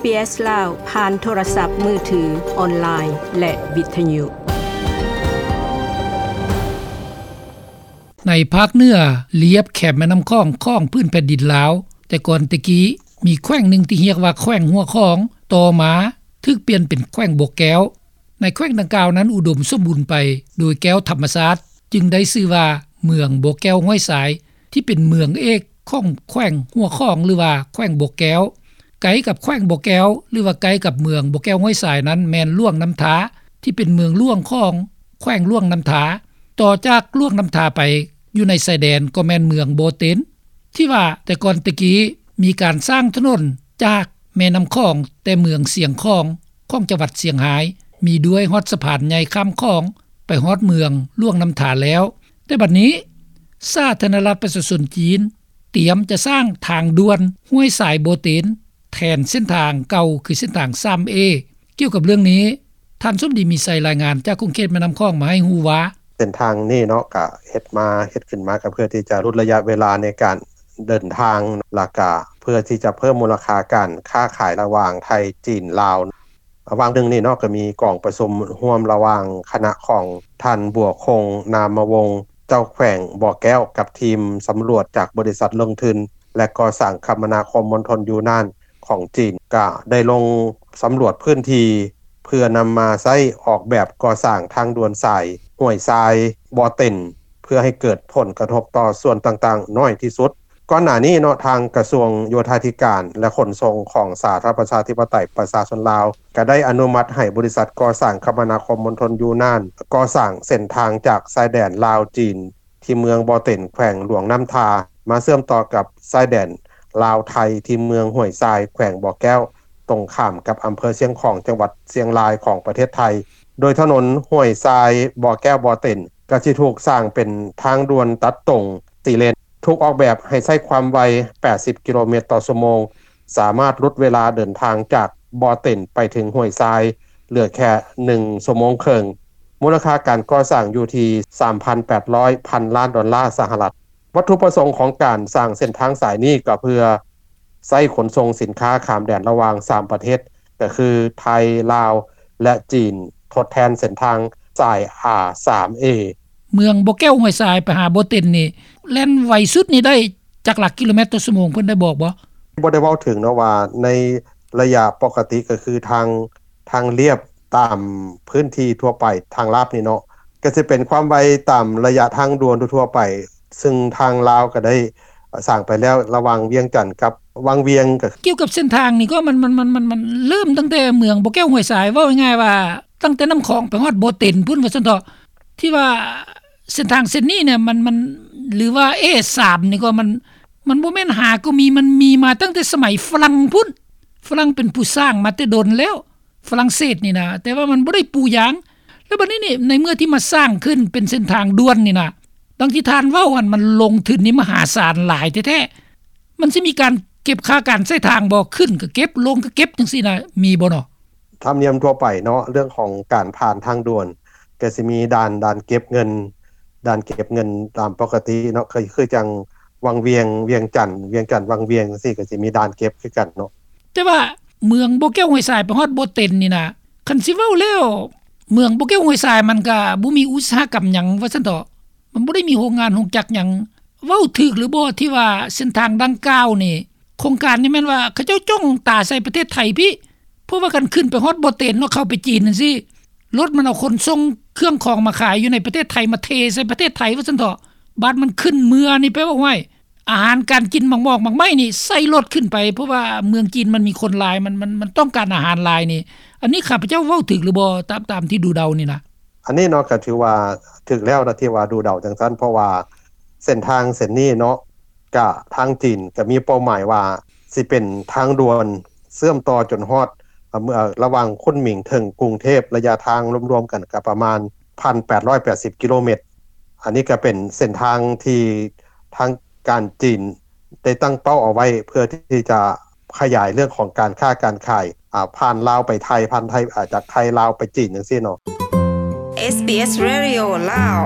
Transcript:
ເອສ ລາວ ຜ່ານໂທລະສັບມືຖື, ອອນລາຍ ແລະ ວິທະຍຸ. ໃນພາກເໜືອລຽບແຄມແມ່ນ້ຳຂອງຂອງພື້ນແຜ່ນດິນລາວ, ແຕ່ກ່ອນແຕ່ກີ້ມີແຂວງໜຶ່ງທີ່ຮຽກວ່າແຂວງຫົວຂອງ, ຕໍ່ມາຖືກປ່ຽນເປັນແຂວງບໍ່ແກ້ວ. ໃນແຂວງດັ່ງກ່າວນັ້ນອຸດົມສົມບູນໄປໂດຍແກ້ວທຳມະຊາດ, ຈຶ່ງໄດ້ຊື່ວ່າເມືອງບໍ່ແກ້ວຫ້ວຍຊາຍ ທີ່ເປັນເມືອງເອກຂອງແຂວງຫົວຂອງ ຫຼືວ່າແຂວງບໍ່ແກ້ວ. ໃກ້ກັບແຂວງບໍ່ແກ້ວ ຫຼືວ່າໃກ້ກັບເມືອງບໍ່ແກ້ວຫ້ວຍຊາຍນັ້ນແມ່ນຫຼວງນ້ຳທາ ທີ່ເປັນເມືອງຫຼວງຂອງແຂວງຫຼວງນ້ຳທາ. ຕໍ່ຈາກຫຼວງນ້ຳທາໄປຢູ່ໃນຊາຍແດນກໍແມ່ນເມືອງບໍ່ເຕັນ ທີ່ວ່າແຕ່ກ່ອນແຕ່ກີ້ມີການສ້າງຖະໜົນຈາກແມ່ນ້ຳຂອງ ແຕ່ເມືອງຊຽງຂອງ ຂອງຈັງຫວັດຊຽງຮາຍ ມີດ້ວຍຮອດສະພານໃຫຍ່ຂ້າມຂອງໄປຮອດເມືອງຫຼວງນ້ຳທາແລ້ວ. ແຕ່ບັດນີ້ສາທາລະນະລັດປະຊາຊົນຈີນຕຽມຈະສ້າງທາງດ່ວນຫ້ວຍຊາຍບໍ່ເຕັນ ແທນເສັ້ນທາງເກົ່າ ຄືເສັ້ນທາງສາມເອ. ກ່ຽວກັບເລື່ອງນີ້ ທ່ານສົມດີ ມີໄຊ ລາຍງານຈາກຂົງເຂດແມ່ນ້ຳຂອງມາໃຫ້ຮູ້ວ່າ ເສັ້ນທາງນີ້ເນາະ ກະເຮັດມາ ເຮັດຂຶ້ນມາກະເພື່ອທີ່ຈະຫຼຸດໄລຍະເວລາໃນການເດີນທາງ ລະກະເພື່ອທີ່ຈະເພີ່ມມູນລະຄ່າການຄ້າຂາຍລະຫວ່າງໄທ ຈີນ ລາວ. ຫວ່າງໜຶ່ງນີ້ເນາະ ກະມີກອງປະຊຸມຮ່ວມລະຫວ່າງຄະນະຂອງທ່ານ ບົວຄົງ ນາມະວົງ ເຈົ້າແຂວງບໍ່ແກ້ວ ກັບທີມສຳຫຼວດຈາກບໍລິສັດລົງທຶນ ແລະ ກໍ່ສ້າງຄະມະນາຄົມມົນທົນຢູນານ ຂອງຈີນ ກະໄດ້ລົງສຳຫຼວດພື້ນທີ່ ເພື່ອນຳມາໃຊ້ອອກແບບກໍ່ສ້າງທາງດ່ວນສາຍຫ້ວຍຊາຍ ບໍ່ເຕັນ ເພື່ອໃຫ້ເກີດຜົນກະທົບຕໍ່ສ່ວນຕ່າງໆໜ້ອຍທີ່ສຸດ. ກ່ອນໜ້ານີ້ເນາະ ທາງກະຊວງໂຍທາທິການ ແລະ ຂົນສົ່ງຂອງສາທາລະນະລັດປະຊາທິປະໄຕປະຊາຊົນລາວ ກະໄດ້ອະນຸມັດໃຫ້ບໍລິສັດກໍ່ສ້າງຄະມະນາຄົມມົນທົນຢູນານ ກໍ່ສ້າງເສັ້ນທາງຈາກຊາຍແດນລາວ-ຈີນ ທີ່ເມືອງບໍ່ເຕັນ ແຂວງຫຼວງນ້ຳທາ ມາເຊື່ອມຕໍ່ກັບຊາຍແດນລາວ-ໄທ ທີ່ເມືອງຫ້ວຍຊາຍ ແຂວງບໍ່ແກ້ວ ຕົງຂ້າມກັບອຳເພີຊຽງຂອງ ຈັງຫວັດຊຽງລາຍ ຂອງປະເທດໄທ. ໂດຍຖະໜົນຫ້ວຍຊາຍ ບໍ່ແກ້ວ ບໍ່ເຕັນ ກະຊິຖືກສ້າງເປັນທາງດ່ວນຕັດຕົງສີ່ເລນ ຖືກອອກແບບໃຫ້ໃຊ້ຄວາມໄວແປດສິບກິໂລແມັດຕໍ່ຊົ່ວໂມງ ສາມາດຫຼຸດເວລາເດີນທາງຈາກບໍ່ເຕັນໄປເຖິງຫ້ວຍຊາຍ ເຫຼືອແຄ່ໜຶ່ງຊົ່ວໂມງເຄິ່ງ. ມູນລະຄ່າການກໍ່ສ້າງຢູ່ທີ່ສາມພັນແປດຮ້ອຍພັນລ້ານດອນລາສະຫະລັດ. ວັດຖຸປະສົງຂອງການສ້າງເສັ້ນທາງສາຍນີ້ກໍເພື່ອໃຊ້ຂົນສົ່ງສິນຄ້າຂ້າມແດນລະຫວ່າງສາມປະເທດ ກໍຄືໄທ, ລາວ ແລະ ຈີນ ທົດແທນເສັ້ນທາງສາຍ ອາ ສາມເອ. ເມືອງບໍ່ແກ້ວຫ້ວຍຊາຍໄປຫາບໍ່ເຕັນນີ້ ແລ່ນໄວສຸດນີ້ໄດ້ຈັກຫຼັກກິໂລແມັດຕໍ່ຊົ່ວໂມງ ເພິ່ນໄດ້ບອກບໍ່? ບໍ່ໄດ້ເວົ້າເຖິງເນາະວ່າໃນໄລຍະປົກກະຕິກໍຄືທາງ ທາງລຽບຕາມພື້ນທີ່ທົ່ວໄປ ທາງລາບນີ້ເນາະ ກໍຊິເປັນຄວາມໄວຕາມໄລຍະທາງດ່ວນທົ່ວໆໄປ ຊຶ່ງທາງລາວກໍໄດ້ສ້າງໄປແລ້ວ ລະຫວ່າງວຽງຈັນກັບວັງວຽງ. ກ່ຽວກັບເສັ້ນທາງນີ້ກໍມັນ ມັນ ມັນ ມັນ ມັນເລີ່ມຕັ້ງແຕ່ເມືອງບໍ່ແກ້ວຫ້ວຍຊາຍ ເວົ້າງ່າຍໆວ່າ ຕັ້ງແຕ່ນ້ຳຂອງໄປຮອດບໍ່ເຕັນພຸ້ນວ່າຊັ້ນເຖາະ ທີ່ວ່າເສັ້ນທາງເສັ້ນນີ້ເນຍ ມັນ ມັນ ຫຼືວ່າ ເອສາມ ນີ້ກໍມັນ ມັນບໍ່ແມ່ນຫາກໍມີ ມັນມີມາຕັ້ງແຕ່ສະໄໝຝຣັ່ງພຸ້ນ ຝຣັ່ງເປັນຜູ້ສ້າງມາແຕ່ດົນແລ້ວ ຝຣັ່ງເສດນີ້ນະ ແຕ່ວ່າມັນບໍ່ໄດ້ປູຢາງ. ແລ້ວບັດນີ້ນີ້ ໃນເມື່ອທີ່ມາສ້າງຂຶ້ນເປັນເສັ້ນທາງດ່ວນນີ້ນະ ດັ່ງທີ່ທ່ານເວົ້າຫັ້ນ ມັນລົງທຶນນີ້ມະຫາສານຫຼາຍແທ້ໆ ມັນຊິມີການເກັບຄ່າການໃຊ້ທາງບໍ່? ຂຶ້ນກໍເກັບ ລົງກໍເກັບ ຈັ່ງຊີ້ນະ ມີບໍ່ເນາະ? ທຳນຽມທົ່ວໄປເນາະ ເລື່ອງຂອງການຜ່ານທາງດ່ວນ ກໍຊິມີດ່ານ ດ່ານເກັບເງິນ ດ່ານເກັບເງິນຕາມປົກກະຕິເນາະ ຄື ຄືຈັ່ງວັງວຽງ ວຽງຈັນ ວຽງຈັນ ວັງວຽງ ຈັ່ງຊີ້ ກໍຊິມີດ່ານເກັບຄືກັນເນາະ. ແຕ່ວ່າເມືອງບໍ່ແກ້ວຫ້ວຍຊາຍໄປຮອດບໍ່ເຕັນນີ້ນະ ຄັນຊິເວົ້າແລ້ວ ເມືອງບໍ່ແກ້ວຫ້ວຍຊາຍມັນກະບໍ່ມີອຸດສາຫະກຳຫຍັງວ່າຊັ້ນເຖາະ ມັນບໍ່ໄດ້ມີໂຮງງານໂຮງຈັກຫຍັງ. ເວົ້າຖືກຫຼືບໍ່ທີ່ວ່າເສັ້ນທາງດັ່ງກ່າວນີ້ ໂຄງການນີ້ແມ່ນວ່າເຂົາເຈົ້າຈ້ອງຕາໃສ່ປະເທດໄທພີ້ ເພາະວ່າຄັນຂຶ້ນໄປຮອດບໍ່ເຕັນເນາະ ເຂົ້າໄປຈີນຈັ່ງຊີ້ ລົດມັນເອົາຂົນສົ່ງເຄື່ອງຂອງມາຂາຍຢູ່ໃນປະເທດໄທ ມາເທໃສ່ປະເທດໄທວ່າຊັ້ນເຖາະ. ບາດມັນຂຶ້ນເມືອນີ້ ແປວ່າ ຫ້ວຍ ອາຫານການກິນ ໝາກໝອກໝາກໄມ້ນີ້ໃສ່ລົດຂຶ້ນໄປ ເພາະວ່າເມືອງຈີນມັນມີຄົນຫຼາຍ ມັນ ມັນ ມັນຕ້ອງການອາຫານຫຼາຍນີ້. ອັນນີ້ຂ້າພະເຈົ້າເວົ້າຖືກຫຼືບໍ່ ຕາມ ຕາມທີ່ດູເດົານີ້ນະ? ອັນນີ້ເນາະ ກໍຖືວ່າຖືກແລ້ວນະ ທີ່ວ່າດູເດົາຈັ່ງຊັ້ນ ເພາະວ່າເສັ້ນທາງເສັ້ນນີ້ເນາະ ກະທາງຈີນກະມີເປົ້າໝາຍວ່າຊິເປັນທາງດ່ວນເຊື່ອມຕໍ່ຈົນຮອດ ເອີ ລະຫວ່າງຄຸນໝິງເຖິງກຸງເທບ ໄລຍະທາງລວມໆກັນກະປະມານພັນແປດຮ້ອຍແປດສິບກິໂລແມັດ. ອັນນີ້ກະເປັນເສັ້ນທາງທີ່ທາງການຈີນໄດ້ຕັ້ງເປົ້າເອົາໄວ້ ເພື່ອທີ່ຈະຂະຫຍາຍເລື່ອງຂອງການຄ້າການຂາຍ ອາ ຜ່ານລາວໄປໄທ ຜ່ານໄທ ອາ ຈາກໄທລາວໄປຈີນຈັ່ງຊີ້ເນາະ. ເອສບີເອສ ເຣດິໂອ ລາວ